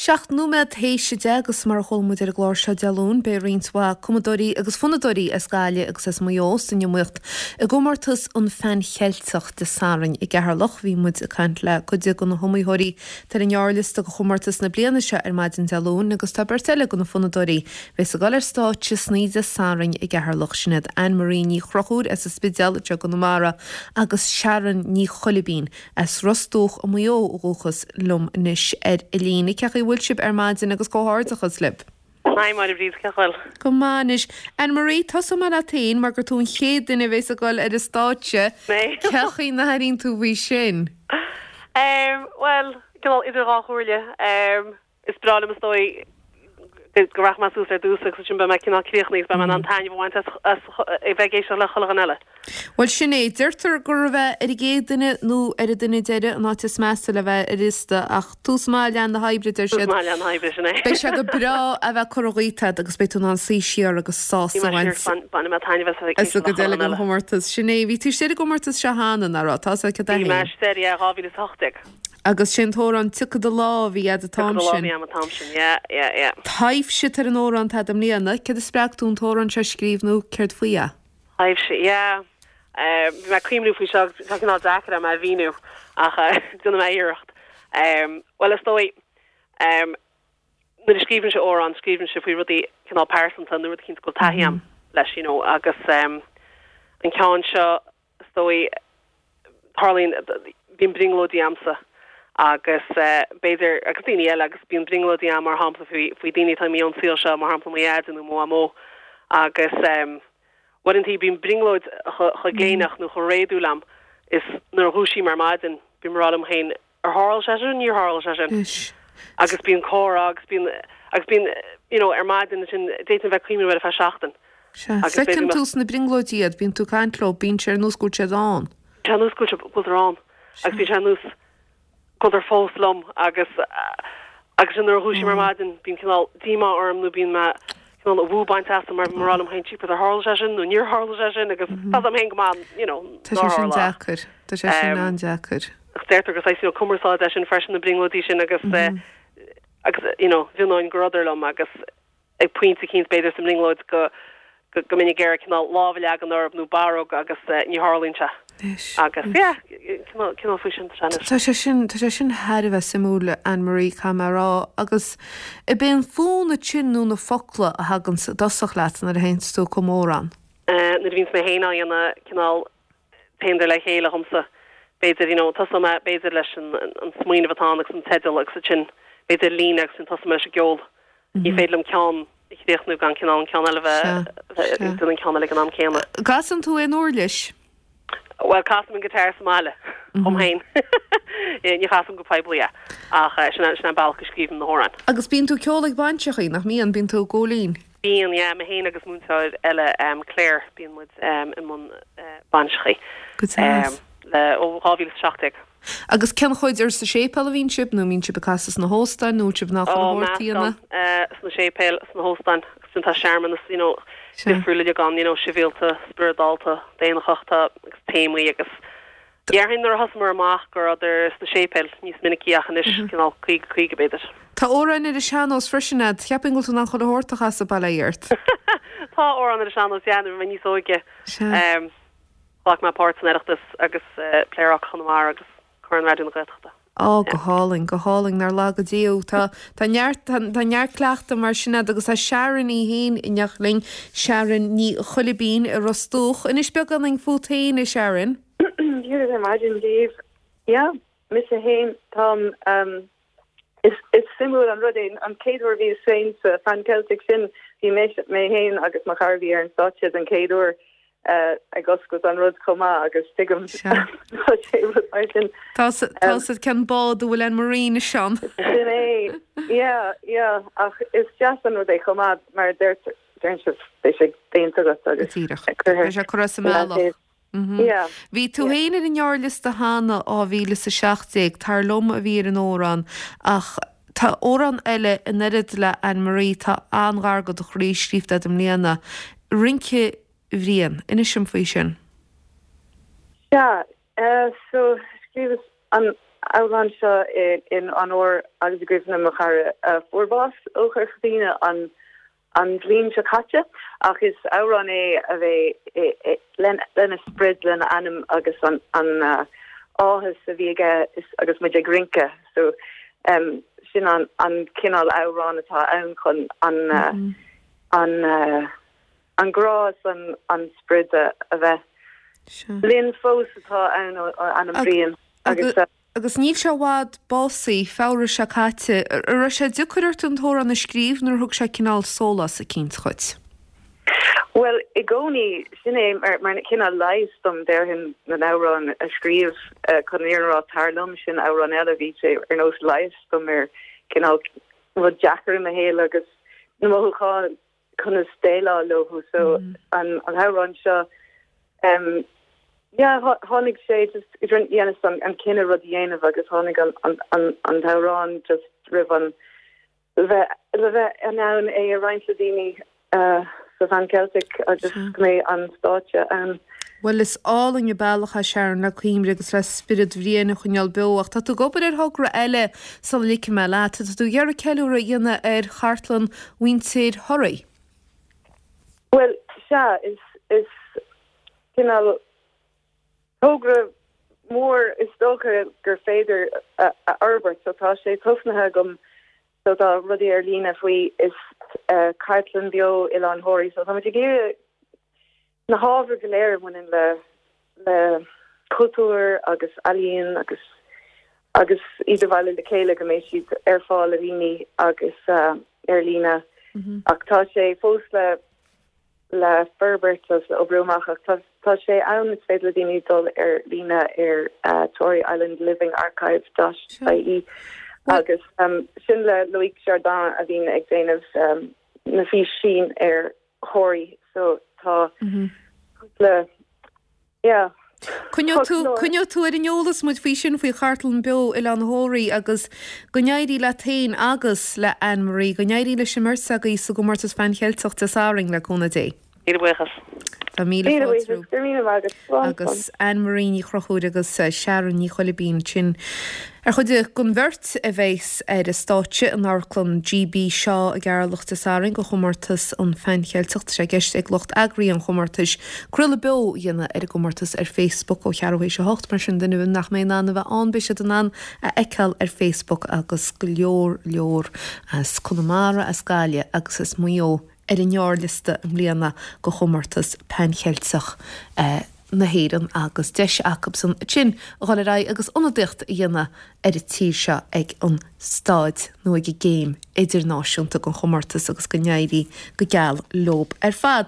7 nóiméad théis 10 agus mar a chuala muid ar an gclár seo Dé Luain, beidh roinnt mhaith cumadóirí agus fonnadóirí as Gaillimh agus as Maigh Eo san iomaíocht i gcomórtas an Pheann Cheilteach Dé Sathairn i gCeatharlach. Bhí muid ag caint le cuid de na hiomaitheoirí atá ar an ngearrliosta do chomórtas na bliana seo ar maidin Dé Luain agus tá beirt eile de na fonnadóirí a bheas ag dul ar stáitse san oíche Dé Sathairn i gCeatharlach, sin iad Anne Marie Ní Chonchúir as an Spidéal anseo i gConamara agus Sharon Ní Choilibín As Ros Dumhach i Maigh Eo ó dhúchas liom anois ar an líne. Cén chaoi a bhfuil sibh ar maidin agus comhghairdeachas libh. Hi Máire Bríd, cén chaoi a bhfuil? Go maith anois. Anne Marie, tosóidh mé leat féin mar gur tú an chéad duine a bhéas ag dul ar an stáitse. Mé? Cén chaoi a n-airíonn tú faoi sin? Bhuel, cineál idir dhá chomhairle. Is breá liom is dóigh go rachaidh mé suas ar dtús agus ansin beidh mé cineál críochnaithe agus beidh mé in ann taitneamh a bhaint as as a bheith ag éisteacht le chuile dhuine eile. Bhuel sin é. Deirtear gur a bheith ar an gcéad duine nó ar an duine deiridh an áit is measa le bheith ar liosta ach tús maith leath na hoibre deir siad. Tús maith leath na hoibre, sin é. Beidh sé go breá a bheith curtha dhíot agat agus beidh tú in ann suí siar agus sásamh a bhaint. Bainfidh mé taitneamh as a bheith ag éisteacht le chuile dhuine eile. Chomórtas. Sin é. Bhí tú istigh ar an gcomórtas seo cheana, nach raibh? Tá a fhios agat é. Bhí mé istigh, yeah, 2018. Agus sé an t-amhrán Tiocfaidh do Lá a bhí a'd an t-am Tiocfaidh do Lá a bhí a'm an t-am sin, yeah, yeah, yeah. Taibhse atá ar an amhrán atá a'd i mbliana. Céard a spreag tú an t-amhrán seo a scríobh nó céard faoi é? Taibhse, yeah. Bhí mé ag cuimhniú faoi seo agus tá cineál deacair a'm é a mhíniú ach déanfaidh mé iarracht. Bhuel, is dóigh, nuair a scríobhaimse amhrán, scríobhaimse faoi rudaí cineál pearsanta nó rud eicínt go bhfuil taithí a'm leis, you know, agus an ceann seo, Is dóigh, tarlaíonn, bíonn brionglóidí a'msa agus b'fhéidir, agus daoine eile, agus bíonn brionglóidí a'm mar shampla faoi, faoi daoine atá imithe ón saol seo, mar shampla mo Dheaide nó mo Mhamó agus uaireantaí bíonn brionglóid chomh gléineach nó chomh réadúil a'm is nuair a dhúisím ar maidin bím ag rá liom féin Ar tharla sé sin? Níor tharla sé sin. Anois. Agus bíonn comhrá agus bíonn, agus bíonn, you know, ar maidin ansin, d'fhéadfainn bheith ag cuimhneamh air ar feadh seachtain. Sea. Agus b'fhéidir Feiceann tú sna brionglóidí iad, bíonn tú ag caint leo, bíonn sé ar nós go bhfuil siad ann. Bíonn sé ar nós go bhfuil, go bhfuiltear ann. Agus bíonn sé ar nós go bhfuiltear fós liom agus, agus sin nuair a dhúisím ar maidin, bíonn cineál díomá orm nó bíonn mé cineál an bhua bainte asam mar bím ag rá liom féin, jeepers, ar tharla sé sin nó níor tharla sé sin agus tá 's a'm féin go maith, you know, Tá sé sin deacair. Tá sé sin an-deacair. Ach deirtear gur saghas, you know, cumarsáid é sin freisin, na brionglóidí sin agus, agus, you know, mhionóinn go rabhadar liom agus ag pointe eicínt b'fhéidir sa mbrionglóid go, go, go mbeinn ag iarraidh cineál lámh a leagan orthu nó barróg agus ní tharlaíonn sé. Agus, yeah, cineál, cineál faoi sin tá sé anois. Tá sé sin, tá sé sin thar a bheith suimiúil, Anne Marie, caithfidh mé a rá. Agus ab é an fonn ansin nó na focla a thaganns i dtosach leat nuair a théanns tú ag cumadh amhrán? Nuair a bhíonns mé féin á dhéanamh, cineál, Téann le chéile dhomsa. B'fhéidir, you know, tosóidh mé, b'fhéidir, leis an, an smaoineamh atá ann agus an teideal agus ansin, b'fhéidir, líne agus ansin tosóidh mé leis an gceol. Ní féidir liom ceann a chríochnú gan cineál an ceann eile a bheith, bheith ag déanamh an ceann eile ag an am céanna. Casann tú aon uirlis? Bhuel, casaim an guitar sa mbaile, dhom féin. Ní chasaim go poiblí é, ach sin é, sin é an bealach go scríobhaim na hamhráin. Agus bíonn tú ag ceol ag bainseachaí, nach mbíonn? Bíonn tú i gCóilín? Bíonn, yeah, mé féin agus múinteoir eile, Claire, bíonn muid i mbun bainseachaí Go deas. le ó 2017. Agus cén chuid, ar sa séipéal a bhíonn sibh nó mbíonn sibh ag casadh sna hóstáin nó bhfuil sibh in ann chuile shórt a dhéanamh? Meascán, sna séipéil, sna hóstáin agus ansin tá searmanas, you know, difriúil uilig ann, you know, sibhialta, spioradálta, daonnachach, tá agus téamaí agus Déarfainn nuair a thosaíomar amach go rabhadar sna séipéil níos minicí ach anois cineál 50, 50 b'fhéidir. Tá amhráin ar an sean-nós freisin a'd. Cheapfainn go bhfuil tú in ann chuile shórt a chasadh, bail ó Dhia ort. Tá amhrán ar an sean-nós, yeah, nuair a bhí mé níos óige. Ghlac mé páirt san Oireachtas agus Pléaráca Chonamara agus Corn Raidió na Gaeltachta. Á, go hálainn, go hálainn, nár laga Dia thú. Tá, tá neart, tá, tá neart cleachtaidh mar sin a'd agus tá Sharon í fhéin in éineacht linn, Sharon Ní Choilibín i Ros Dumhach. Inis beagáinín fút fhéin, a Sharon. Dia daoibh ar maidin daoibh. Yeah, mise fhéin, táim, ehm, is, is suimiúil an rud é, an chéad uair a bhíos féin sa Phan Celtic sin, bhí mé, mé fhéin agus mo chara a bhí ar an stáitse den chéad uair, ag oscailt an rud chomh maith agus tuigim tá sé rud mar sin. Tá 's a'd cén bád a bhfuil Anne Marie anois ann. Sin é, yeah, yeah, ach is deas an rud é chomh maith mar deir deireann sibh beidh sé déanta agat agus Díreach. Beidh sé curtha as an mbealach. Yeah. Bhí tú féin ar an ngearrliosta cheana 2017, Tar Liom a bhí ar an amhrán ach tá amhrán eile in oiread le Anne Marie atá an-ghar do do chroí scríofa agat i mbliana, Rince Bhriain. Inis dom faoi sin. Sea, so scríobhas. an amhrán seo in onóir agus i gcuimhne mo chara a fuair bás ó Chorca Dhuibhne an an bhliain seo caite ach is amhrán é a bheidh lena sprid, lena anam agus an áthas a bhí aige agus muid ag rince. So sin an cineál amhrán atá ann chun an an grá is an sprid a bheith linn fós atá ann ó anam Bhriain agus. Agus níl sé i bhfad básaithe, Feabhra seo caite. An raibh sé deacair ort an t-amhrán a scríobh nó ar thug sé cineál sólás eicínt dhuit? Bhuel, i gcónaí, sin é mar cineál leigheas dom, déarfainn, na n-amhrán a scríobh. Chun an fhírinne a rá, Tar Liom, sin amhrán eile, bhí sé ar nós leigheas dom ar cineál rud deacair i mo shaol agus na mothúcháin conas déileáil leo. So an t-amhrán seo em yeah tháinig sé just dheineas an cinneadh rud a dhéanamh agus tháinig an an an t-amhrán just roimh an le bheith le bheith in ann é a roinnt le daoine sa Phan Celtic agus go mbeidh an stáitse ann. Bhuel is álainn an bealach é Sharon le cuimhne agus le spiorad Bhriain a choinneáil beo ach tá tú ag obair ar thogra eile sula ligfidh mé leat. Tá tú ag iarraidh ceiliúradh a dhéanamh ar chartlann mhuintir Thoraí. Bhuel, sea, is, is cineál togra mór is dócha gur féidir a fhorbairt. So tá sé tosnaithe agam, so tá rudaí ar líne faoi, is cartlann beo Oileán Thoraí. So táimid ag iarraidh na hábhair go léir a bhaineann le le cultúr agus ealaíon agus agus iad a bhailiú le chéile go mbeidh siad ar fáil do dhaoine agus ar líne. Ach tá sé fós le le forbairt agus le oibriú amach ach tá tá sé ann is féidir le daoine dul ar líne ar Tory Island Living Archive dot ie agus sin le Loïc Jardin a bhíonn ag déanamh na físeáin ar Thoraí so tá cúpla yeah. Coinneoidh tú, coinneoidh tú ar an eolas muid faoi sin, faoi Chartlann Beo Oileán Thoraí agus go n-éirí leat féin agus le Anne Marie, go n-éirí leis an mbeirt agaibh sa gcomórtas Phan Cheilteach Dé Sathairn, le cúnamh Dé. Míle buíochas. Tá míle Míle fáilte buíochas, go raibh míle maith agat. Slán, slán. Agus Anne Marie Ní Chonchúir agus Sharon Ní Choilibín sin ar chuid den bheirt a bheas ar an stáitse in Amharclann G.B. Shaw i gCeatharlach Dé Sathairn do chomórtas an Phan Cheilteach. Tá sé i gceist ag lucht eagraithe an chomórtais craoladh beo a dhéanamh ar an gcomórtas ar Facebook ó cheathrú théis a hocht. Mar sin duine nach mbeidh in ann a bheith ann beidh siad in ann a fheiceáil ar Facebook agus go leor leor as Conamara, as Gaillimh agus as Maigh Eo ar an ngearrliosta i mbliana do chomórtas Pan Cheilteach na hÉireann agus deis acusan ansin a dhul ar aghaidh agus ionadaíocht a dhéanamh ar an tír seo ag an staid nó ag an gcéim idirnáisiúnta den chomórtas agus go n-éirí go geal leob ar fad.